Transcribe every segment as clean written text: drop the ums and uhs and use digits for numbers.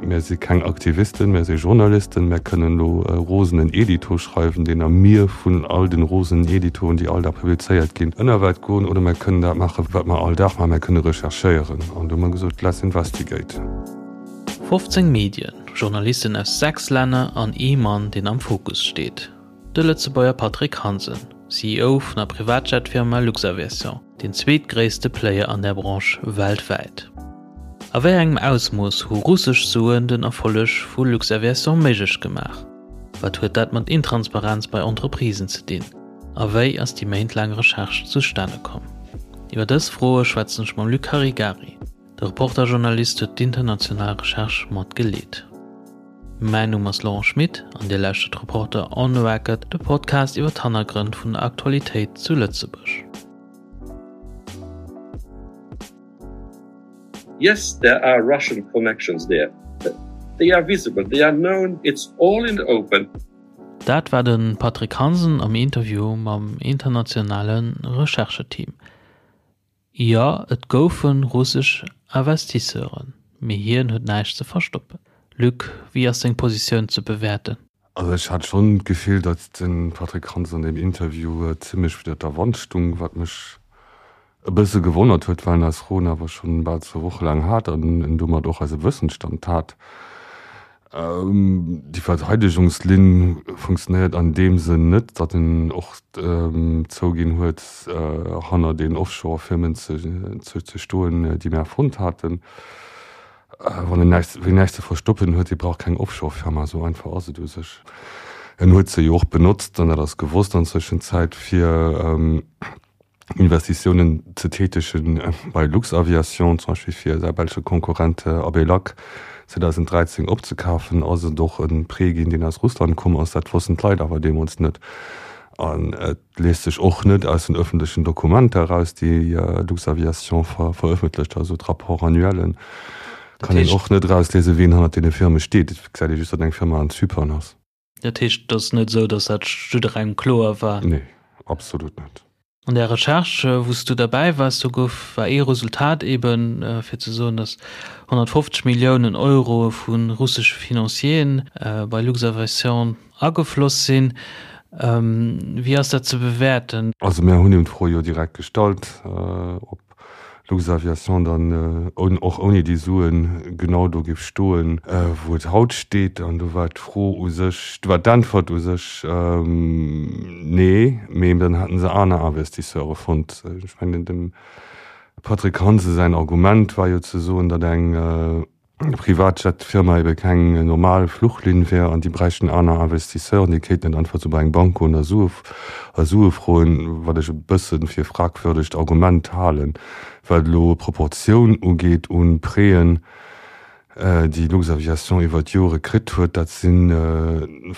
Mär si keng Aktivisten, mär si Journalisten. Mär kënnen elo e rosenen Edito schreiwen, deen am Mier vun all den rosenen Editoen, déi all Dag publizéiert ginn, ënnerwäert goen. Oder mär kënnen dat maachen, wat mer all Dag maachen, mär kënne recherchéieren. An do hu mer gesot, Let's investigate. 15 Medien, Journalisten aus 6 Länner an ee Mann, deen am Fokus steet, de Lëtzebuerger Patrick Hansen, CEO vun der Privatjet-Firma Luxaviation, deen zweetgréisste Player an där Branche weltwäit. A wéi engem Ausmooss hu russesch Suen den Erfolleg vu Luxaviation méiglech gemaach? Wat huet dat mat Intransparenz bei Entreprisen ze dinn? A wéi ass déi méintlaang Recherche zustane komm? Iwwer dës Froe schwätzen ech mam Luc Caregari. De Reporter-Journalist huet d'international Recherche mat geleet. Mäin Numm ass Laurent Schmit an Dir lauschtert Reporter on the Record, de Podcast iwwer d'Hannergrënn vun der Aktualitéit zu Lëtzebuerg. Yes, there are Russian connections there. They are visible, they are known, it's all in the open. Dat war de Patrick Hansen am Interview mam internationale Rechercheteam. Jo, et goufe russesch Investisseuren, mee hien huet näischt ze verstoppen. Luc, wéi ass seng Positioun ze bewäerten? Also ech hat schonn d'Gefill, datt de Patrick Hansen an deem Interview zimmlech widder der Wand stung, wat mech e bësse gewonnert huet, well en eis Froen awer schonn bal zwou Woche laang hat an en domat och eise Wëssensstand hat. Déi Verteidegungslinn funktionéiert an deem Sënn net, datt en och zouginn huet, hanner den Offshore-Firmen ze stoen, déi mir fonnt haten. Wann en näischt, wien näischt ze verstoppen huet, dee brauch keng Offshore-Firma, esou einfach ass et u sech. En huet se jo och benotzt, an dat ass gewosst an Zwëschenzäit, fir Investitiounen ze tätegen bei Luxaviation, zum Beispill fir säi belsche Konkurrent Abelac 2013 opzekafen, ass et och e Prêt ginn, deen aus Russland komm ass. Dat wossten d'Leit awer deemools net. An et liest sech och net aus den öffentlechen Dokumenter eraus, déi Luxaviation verëffentlecht, also d'Rapports annuellen, kann een och net erausliesen, wien hannert deene Firme steet. Et gesäit ee just, datt eng Firma an Zypern ass. Dat heescht, et ass net esou, datt dat jidderengem kloer war? Nee, absolut net. An där Recherche, wou s du derbäi waars, do gouf, war ee Resultat eben, fir ze soen, datt 150 Milliounen Euro vu russesche Financieren bei Luxaviation agefloss sinn. Wéi ass dat ze bewäerten? Also mir hunn him d'Fro jo direkt gestallt, ob Luxaviation dann och ouni déi Suen genau do géif stoen, wou et haut steet. An do war d'Fro u sech, do war d'Äntwert u sech, Nee, mee dann hätte se aner Investisseure fonnt. Ech mengen, dem Patrick Hansen säin Argument war jo ze soen, datt eng Privatjet-Firma ebe keng normal Fluchlinn wär an déi bräichten aner Investisseuren, déi kéinten net einfach sou bei eng Bank goen a Sue a Sue froen, wat ech e bësse fir e fragwürdegt Argument halen, wat elo d'Proportioun ugeet un Prêten, déi Luxaviation iwwer d'Jore kritt huet. Dat si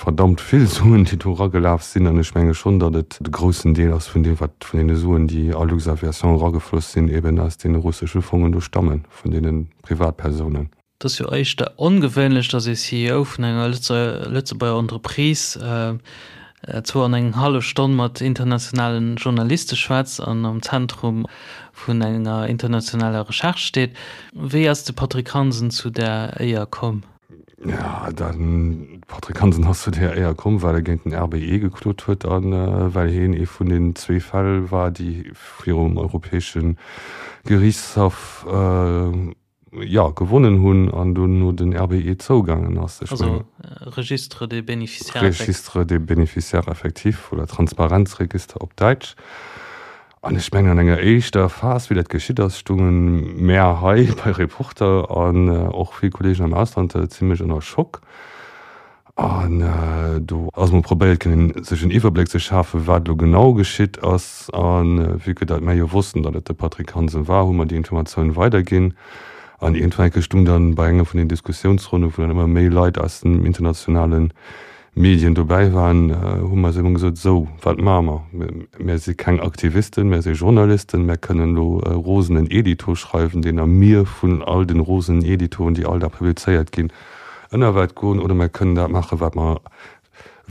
verdammt vill Suen, déi do eragelaf sinn an ech menge schonn, datt et de groussen Deel ass vun deem, wat vun deene Suen, déi a Luxaviation eragefloss sinn, eben aus deene russesche Fongen do stammen. vun deene Privatpersounen. Et ass jo éischter ongewéinlech, datt ee CEO vun enger Lëtzebuerger Entreprise zwou an eng hallef Stonn mat internationale Journaliste schwätzt an am Zentrum vun enger internationaler Recherche steet. Wéi ass de Patrick Hansen zu där Éier komm? Jo, de Patrick Hansen ass zu där Éier komm, well e géint den RBE geklot huet a well hien ee vun den zwee Fäll war, déi virum Europäesche Geriichtshaff, jo, gewonnen hunn an dunn no den RBE zougaangen ass. Also Registre des bénéficiaires effectifs. Registre des bénéficiaires effectifs oder Transparenzregister op Däitsch. An ech mengen, an enger éischter Phas, wéi dat geschitt ass, stounge mär hei bei Reporter an och vill Kolleegen am Ausland zimlech ënner Schock. An do ass emol probéiert ginn, sech en Iwwerbléck ze schafen, wat elo genau geschitt ass. A vue que datt mär jo wossten, datt et de Patrick Hansen war, hu mer déi Informatioun weiderginn. An iergendwann eng Kéier stung dann bei enger vun den Diskussiounsronnen, wou dann ëmmer méi Leit aus dem internationale Medien dobäi waren, hu mer eis ëmmer gesot, Esou, wat maache mer? Mär si keng Aktivisten, mär si Journalisten, mär kënnen elo e rosenen Edito schreiwen, deen am Mier vun all den rosenen Editoen, déi all Dag publizéiert ginn, ënnerwäert goen, oder mär kënnen dat maachen, wat mer,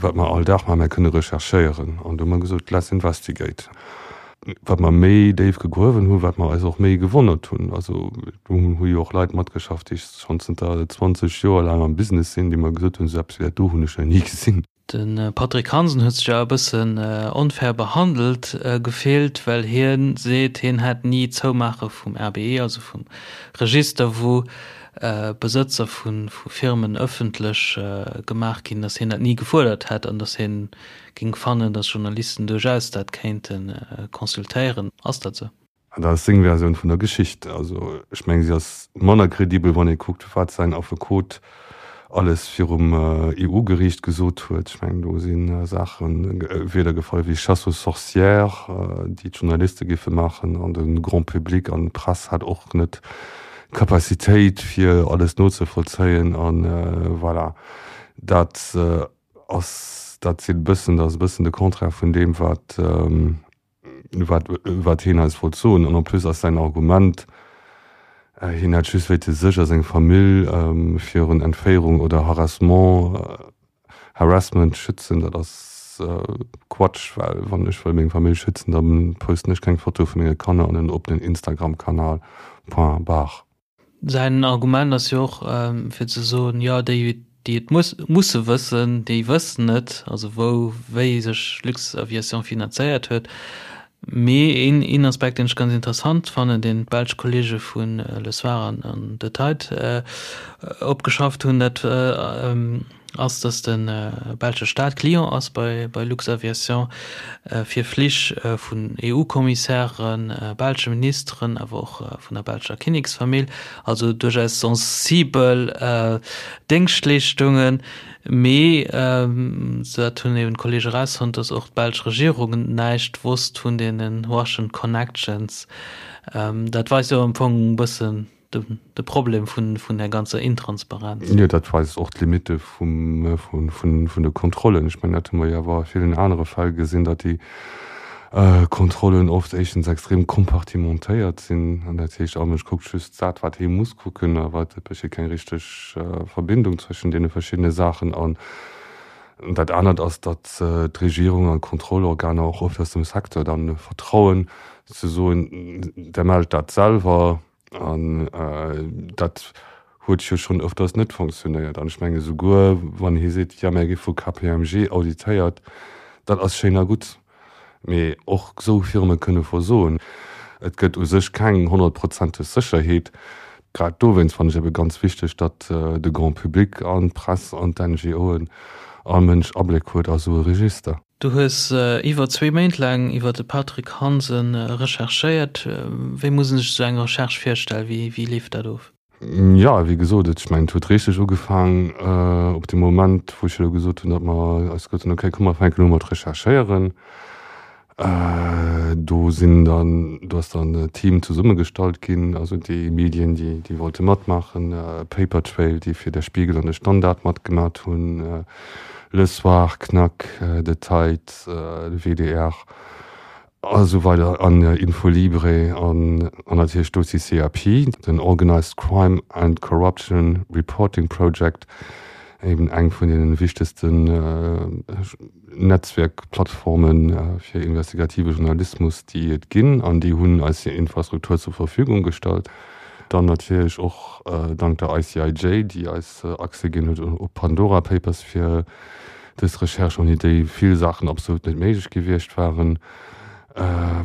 wat mer all Dag maachen, mär kënne recherchéieren. An do hu mer gesot, Let's investigate. Wat mer méi déif gegruewen hunn, wat mer eis och méi gewonnert hunn. Also do hu jo och Leit matgeschafft, déi schonn zënter 20 Joer laang am Business sinn, déi mer gesot hunn, esou eppes wéi dat do hunn ech nach ni gesinn. De Patrick Hansen huet sech awer e bëssen onfair behandelt gefillt, well hie seet, hien hätt ni d'Zoumaache vum RBE, also vum Register, wou Besëtzer vu Firmen ëffentlech gemaach ginn, datt hien dat ni gefuerdert hätt an datt hien géing fannen, datt Journalisten duerchaus dat kéinte consultéieren. Ass dat esou? An dat ass seng Versioun vun der Geschicht. Also ech mengen, si ass manner kredibel, wann ee kuckt, wat säin Affekot alles virum EU-Geriicht gesot huet. Ech mengen, do si Saache Wierder gefall wéi Chasse aux sorcières, déi d'Journaliste géife maachen an de Grand public an d'Press hat och net d'Capacitéit, fir alles nozevollzéien. A voilà, dat ass dat sinn e bëssen, dat ass e bëssen de Contraire vun deem, wat wat, wat hien eis wollt soen. An en plus ass säin Argument, hien hätt just wéilte sech a seng Famill virun Entféierung oder Harassement, Harassment schützen, dat ass Quatsch, well wann ech wëll meng Famill schützen, da posten ech keng Foto vu menge Kanner an en oppenen Instagram-Kanal. Point barre. Säin Argument ass jo och, fir ze soen, jo, déi, déi et musse wëssen, déi wëssen et, also wou, wéi sech Luxaviation finanzéiert huet. Mee een, een Aspekt, deen ech ganz interessant fannen, deen d'belsch Kollege vu Le Soir an De Tijd opgeschafft hunn, dat ass, dass de belsche Staat Client ass bei Luxaviation fir Flich vun EU-Kommissären, belsche Ministeren, awer och vun der belscher Kinneksfamill, also duerchaus sensibel Déngschtleeschtungen. Mee, dat hunn eben d'Kollege erausfonnt, dass och d'belsch Regierung näischt wosst vun deene Russian Connections. Dat weist jo am Fong e bëssen, de Problem vun der ganzer Intransparenz. Jo, dat weist och d'Limitte vun de Kontrollen. Ech mengen, dat hu mer jo awer a villen anere Fäll gesinn, datt déi Kontrollen oft éischtens extrem kompartimentéiert sinn, an dat heescht, all Mënsch kuckt just dat, wat hie muss kucken, awer et besteet keng richteg Verbindung zwëschen deene verschiddene Saachen. An dat anert ass, datt d'Regierung an d'Kontrollorganer och oft aus dem Secteur dann vertrauen, ze soen, Der mellt dat selwer. An dat huet jo schonn ëfters net fonctionnéiert. An ech menge souguer, wann hie seet, jo, mir gi vu KPMG auditéiert, dat ass schéin a gutt, mee och esou Firme kënne versoen. Et gëtt u sech keng honnertprozenteg Sécherheet. Grad dowéinst fannen ech ebe ganz wichteg, datt de Grand public an d'Press an d'NGOen, all Mënsch Abléck huet a sou e Register. Du hues iwwer zwee Méint laang iwwer de Patrick Hansen recherchéiert. Wéi muss een sech esou eng Recherche virstellen? Wéi, wéi leeft dat of? Jo, wéi gesot, ech mengen, et huet richteg ugefaang op dee Moment, wou ech elo gesot hunn, datt mer eis gesot hunn, okay, komm mer fänken u mat recherchéieren. Do sinn dann, do ass dann e Team zesummegestallt ginn, also déi Medien, déi, déi wollte matmaachen, Papertrail, déi fir Der Spiegel an de Standard matgemat hunn, Le Soir, Knack, De Tijd, de WDR a sou weider an Infolibre an natierlech d'OCCRP, den Organized Crime and Corruption Reporting Project, eben eng vun deene wichtegsten Netzwerkplattforme fir investigative Journalismus, déi et ginn, an déi hunn eis hir Infrastruktur zur Verfügung gestallt. Dann natierlech och dank der ICIJ, déi eis Accès ginn huet op Pandora Papers fir dës Recherche, ouni déi vill Saachen absolut net méiglech gewiescht waren.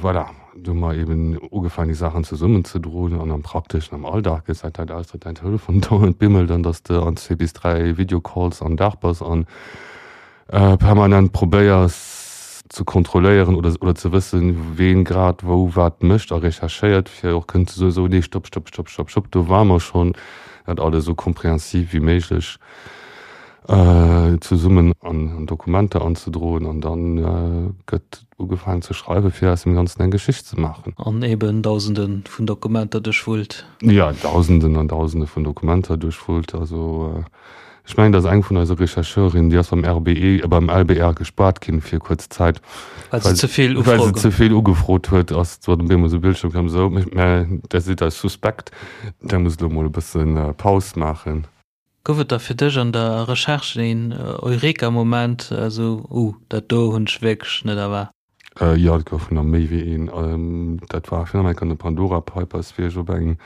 Voilà, do hu mer eben ugefaangen, déi Saachen zesummenzedroen an am Prakteschen, am Alldag gesäit dat aus, datt däin Telefon dauernd bimmelt an datt s de an zwee bis dräi Videocalls am Dag bass an permanent probéiers ze kontrolléieren oder oder ze wëssen, ween grad wou wat mécht a recherchéiert, fir och kënnen ze soen, sou, nee, stopp, stopp, stopp, stopp, stopp, do ware mer schonn, dat alles esou komprehensiv wéi méiglech zesummen an Dokumenter anzedroen an dann gëtt ugefaangen ze schreiwen, fir aus dem Ganzen eng Geschicht ze maachen. An eben Dausende vun Dokumenter duerchwullt. Jo, Dausenden an Dausende vun Dokumenter duerchwullt. Also Ech mengen, dass eng vun eise Rechercheurinnen, déi ass beim RBE, beim LBR gespaart ginn fir kuerz Zäit, well se ze vill well se ze vill ugefrot huet, ass zwar op eemol esou Bildschirm komm, esou, mä där sidd eis suspekt, där musst elo mol e bësse Paus maachen. Gouf et da fir dech an der Recherche een Eureka-Moment, esou, Uh, dat do hunn ech wierklech net erwaart? Jo, et goufen der méi wéi een. Dat war virun allem an de Pandora Papers, wéi ech op eng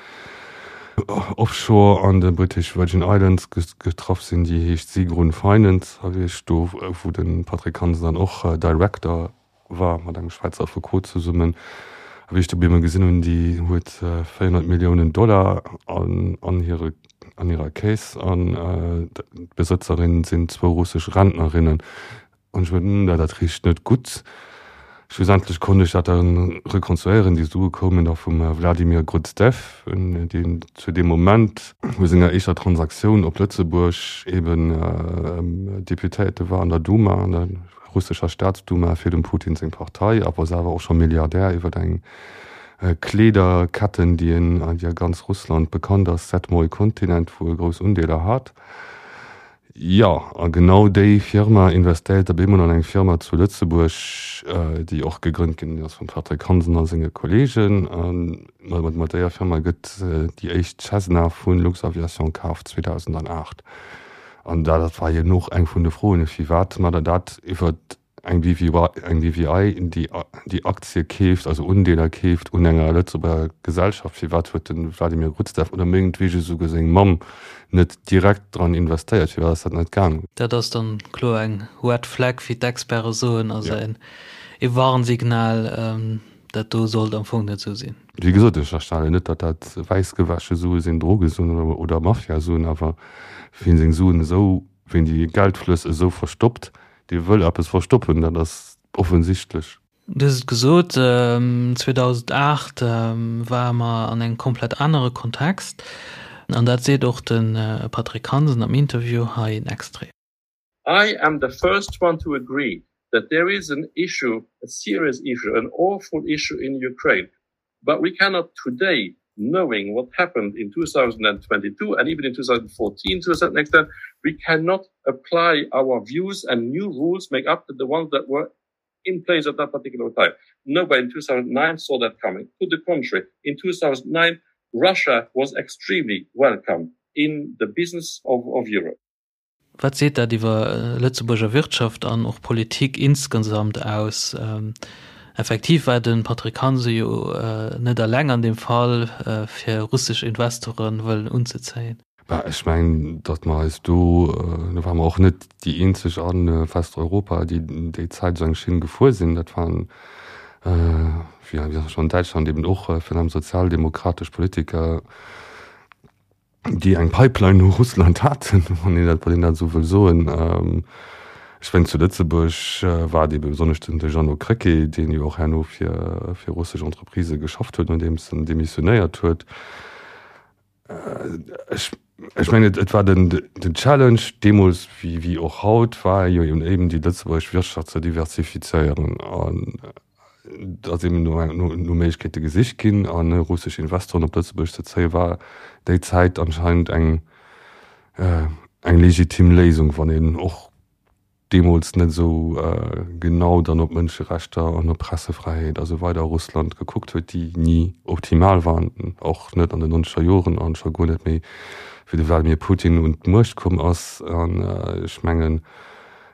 Offshore an de British Virgin Islands getraff sinn, déi heescht Sigrun Finance, a wéi ech do, wou de Patrick Hansen dann och Director war, mat engem Schwäizer Affekot zesummen, a wéi ech do op eemol gesinn hunn, déi huet 400 Milliounen Dollar an hire an hirer Caisse an d'Besëtzerin sinn zwou russesch Rentnerinnen. An ech mot, dat richt net gutt. Schlussendlech konnt ech dat dann rekonstruéieren. Déi Sue koumen da vum Wladimir Gruzdev, deen zu deem Moment no senger éischter Transaktioun op Lëtzebuerg eben Deputéierte war an der Duma, an der russescher Staatsduma fir dem Putin seng Partei, awer selwer och scho Milliardär iwwer eng Kleederketten, déi a ganz Russland bekannt ass, Sedmoi Kontinent, wou e grouss Undeeler hat. Jo, a genau déi Firma investéiert op eemol an eng Firma zu Lëtzebuerg, déi och gegrënnt ginn ass vum Patrick Hansen a senge Kolleegen. A mat déier Firma gëtt déi éischt Cessna vu Luxaviation kaf 2008. An dat war jo och eng vun de Froen, firwat mat der dat iwwer Eng BVI, déi déi Aktie keeft, also Undeeler keeft un enger Lëtzebuerger Gesellschaft, firwat huet de Vladimir Gruzdev oder mengetwege esouguer seng Mamm net direkt dran investéiert? Firwat ass dat net gaangen? Dat ass dann kloer eng Red Flag, wéi d'Experte soen, also e Warnsignal, dat do sollt am Fong net esou sinn. Wéi gesot, ech ënnerstellen net, datt dat wäissgewäsche Sue sinn, Drogesuen oder Mafiasuen, awer wien seng Suen esou, wien déi Geldflëss esou verstoppt, Dee wëll eppes verstoppen, dat ass offensichtlech. Du hues et gesot, 2008 ware mer an engem komplett anere Kontext. An dat seet och de Patrick Hansen am Interview. Hei en Extrait. I am the first one to agree that there is an issue, a serious issue, an awful issue in Ukraine. But we cannot today, knowing what happened in 2022 and even in 2014 to a certain extent, we cannot apply our views and new rules make up to the ones that were in place at that particular time. Nobody in 2009 saw that coming. To the contrary, in 2009, Russia was extremely welcome in the business of, of Europe. Wat seet dat iwwer Lëtzebuerger Wirtschaft an och Politik insgesamt aus? Effektiv war de Patrick Hansen jo net eleng an deem Fall, fir russesch Investore wëllen unzezéien. Bah, ech mengen, datt mer eis do, do ware mer och net déi eenzeg a Westeuropa, déi déi Zäit esou eng Schinn gefuer sinn. Dat waren, wéi an Däitschland eben och, virun allem sozialdemokratesch Politiker, déi eng Pipeline no Russland haten, wann een dat, wann een dat esou wëll soen. Ech mengen zu Lëtzebuerg war et ebe besonnesch den de Jeannot Krecké, deen jo och herno fir, fir russesch Entreprisë geschafft huet, nodeems en demissionéiert huet. Ech, ech mengen et, et war den, den Challenge deemools wéi, wéi och haut, war jo eben déi lëtzebuergesch Wirtschaft ze diversifizéieren an, Et ass eben no no Méiglechkeete gesicht ginn an russesch Investoren op Lëtzebuerg ze zéien, war déi Zäit anscheinend eng eng legitim Léisung, wann een och deemools net esou genau dann op Mënscherechter an op Pressefräiheet a sou weider a Russland gekuckt huet, déi ni optimal waren, och net an den nonzeger Joren an scho guer net méi wéi de Wladimir Putin un d'Muecht komm ass. An ech mengen,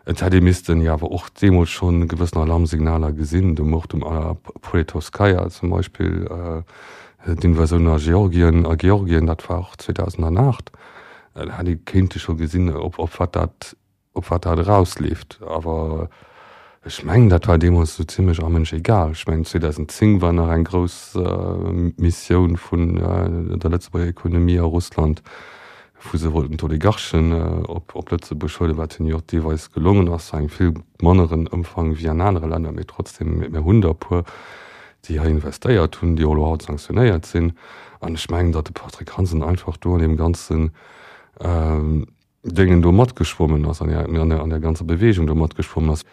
Et hätt ee missten jo awer och deemools schonn gewëssen Alarmsignaler gesinn, de Mord um Alla Politowskaja zum Beispill, d'Invasioun a Georgien, a Georgien, dat war och 2008, da hätt ee kéinte scho gesinn, op op wat dat op wat dat erausleeft. Awer ech mengen, dat war deemools esou zimlech allmënsch egal. Ech mengen, 2010 war nach eng grouss Missioun vun der Lëtzebuerger Ekonomie a Russland, wou se wollten d'Oligarchen op Lëtzebuerg huelen, wat hinnen jo och deelweis gelongen ass, zu engem vill manneren Ëmfang wéi an anere Länner, mee trotzdem, mir hunn der e puer, déi hei investéiert hunn, déi och elo haut sanktionéiert sinn. An ech mengen, datt de Patrick Hansen einfach do an deem ganzen Déngen do matgeschwommen ass, an där ganzer Bewegung do matgeschwommen ass.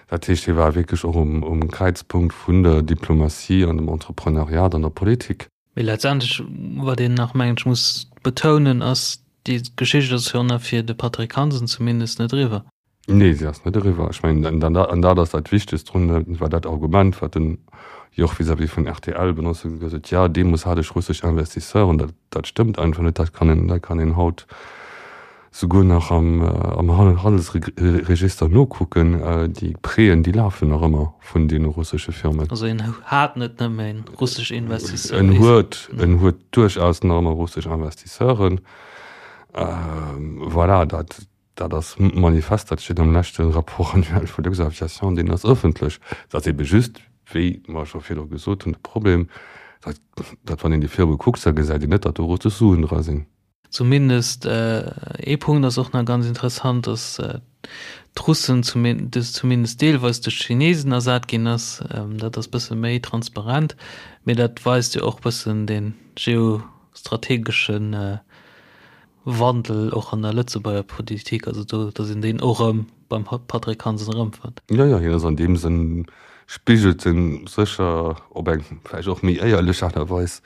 Dat heescht, hie war wierklech och um Kräizpunkt vun der Diplomatie an dem Entrepreneuriat an der Politik. Mee letztendlech, wat een nach, mengen ech, muss betounen, ass, déi Geschicht ass jo nach fir de Patrick Hansen zumindest net eriwwer. Nee, se ass net eriwwer. Ech mengen, an dat ass dat Wichtegst drun, dat war dat Argument, wat den jo och vis-à-vis vun rtl benotzt huet, gesot huet, jo, deemools hat ech russesch Investisseuren. Dat, dat stëmmt einfach net. Dat kann een, dat kann een haut. Souguer nach am Handelsregister nokucken, déi Prêten, déi lafen nach ëmmer vun deene russesche Firmen. Also en hat net nëmme russesch Investisseuren. En huet, en huet duerchaus nach ëmmer russesch Investisseuren. Voilà, dat, dat ass manifest, dat steet am leschte Rapport annuel vu Luxaviation, deen ass ëffentlech. Et ass ebe just, wéi mer scho virdru gesot hunn, de Problem, datt, datt wann een déi Firme kuckt, da gesäit een net, datt do russesch Suen dra sinn. Zumindest ee Punkt ass och nach ganz interessant, dass d'Russen zumindest deelweis duerch d'Chinesen ersat ginn ass. Dat ass bësse méi transparent, mee dat weist jo och bëssen de geostrategesche Wandel och an der Lëtzebuerger Politik, also do, dass een deen och erëm beim Patrick Hansen erëmfënnt. Jo, jo, hien ass an deem Sënn, spigelt en sécher op eng vläicht och méi éierlech Aart a Weis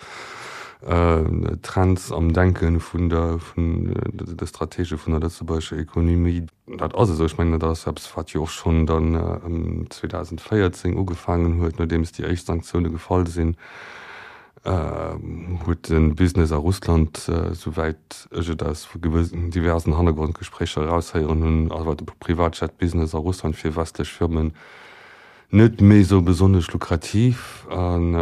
d'Trends am Denke vun der, vun de Stratege vun der lëtzebuergescher Ekonomie. Dat ass esou. Ech mengen, dat ass eppes, wat jo och schonn dann ëm 2014 ugefaangen huet, nodeems déi éischt Sanktioune gefall sinn. Huet de Business a Russland, souwäit ech et aus diversen Hannergrondgespréicher eraushéieren hunn, awer de Privatjet-Business a Russland fir westlech Firmen net méi esou besonnesch lukrativ an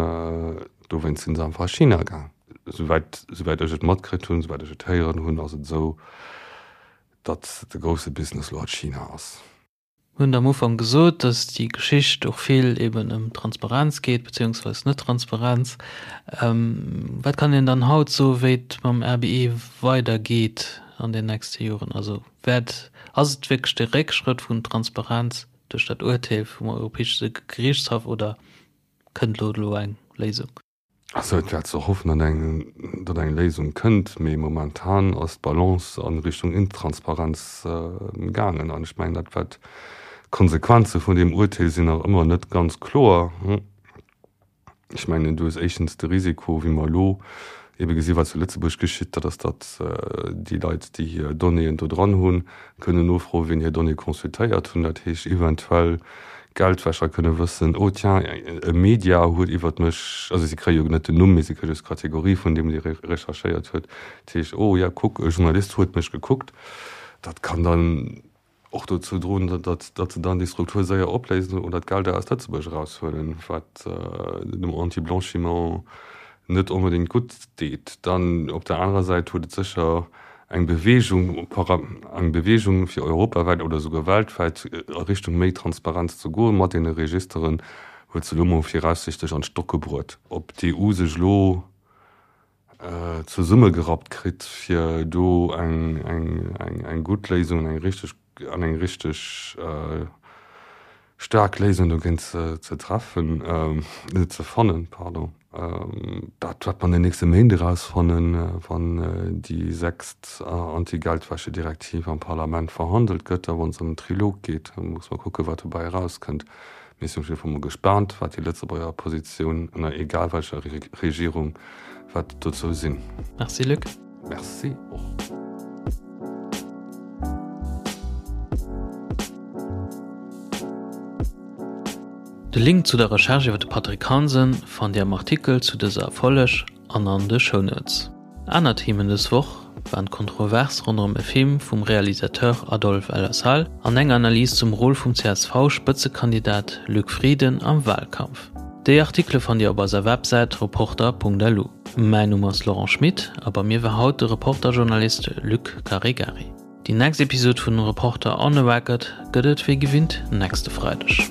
dowéinst sinn se einfach a China gaang. Souwäit souwäit ech et matkritt hunn, souwäit ech et héieren hunn, ass et esou, datt de grousse Business elo a China ass. Mir hunn am Ufank gesot, dass déi Geschicht och vill eben ëm Transparenz geet, beziehungsweis Net-Transparenz. Wat kann een dann haut soen, wéi et mam RBE weidergeet an den nächste Joren? Also wäert, ass et wierklech de Réckschrëtt vun Transparenz duerch dat Urteel vum Europäesche Gerichtshaff oder kënnt elo elo eng Léisung? Also et wär ze hoffen, datt eng, datt eng Léisung kënnt, mee momentan ass d'Balance a Richtung Intransparenz gaangen. An ech mengen, dat wat d'Konsequenze vun deem Urteel sinn nach ëmmer net ganz kloer. Ech mengen, du hues éischtens de Risiko, wéi mer elo ebe gesi wat zu Lëtzebuerg geschitt, dat ass, datt déi Leit, déi hir Donnéeën do dran hunn, kënnen nofroen, wien hir Donnéeë consultéiert hunn. Dat heescht eventuell Geldwäscher kënne wëssen, oh tiens, e Media huet iwwert mech, also si kréie jo net den Numm, mee si kréie just d'Kategorie vun deem, dee recherchéiert huet, dat heescht, oh ja, kuck, e Journalist huet mech gekuckt. Dat kann dann och dozou droen, datt se dann déi Struktur séier opléisen oder d'Gelder aus Lëtzebuerg eraushuelen, wat dem Anti-Blanchiment net onbedéngt gutt deet. Dann op der anerer Säit huet et sécher eng Beweegung, eng Beweegung fir europawäit oder esouguer weltwäit a Richtung méi Transparenz ze goen, mat deene Registeren, huet se elo mol viraussichtlech an d'Stocke bruet. Ob d'EU sech elo zesummegerappt kritt, fir do eng gutt Léisung, eng richteg an eng richteg staark Léisung dogéint ze treffen, ze fannen, pardon. Dat wäert mer an den nächste Méint erausfannen, wann déi sechst Anti-Geldwäsche-Direktiv am Parlament verhandelt gëtt a wa se an den Trilog geet. Da muss mer kucken, wat dobäi erauskënnt. Mir sinn op jidde Fall mol gespaant, wat déi Lëtzebuerger Positioun, ënner egal welcher Regierung, wäert dozou sinn. Merci Luc. Merci och. De Link zu der Recherche iwwer de Patrick Hansen fannt Dir am Artikel zu dëser Folleg an an de Shownotes. Aner Themen dës Woch waren d'Kontrovers ronderëm e Film vum Realisateur Adolphe El Assal an eng Analys zum Rôle vum CSV-Spëtzekandidat Luc Frieden am Walkampf. Déi Artikele fannt Dir op eiser Websäit reporter.lu. Mäin Numm ass Laurent Schmit a bei mir war haut de Reporter-Journalist Luc Caregari. Déi nächst Episod vun Reporter on the Record gëtt et wéi gewinnt nächste Freideg.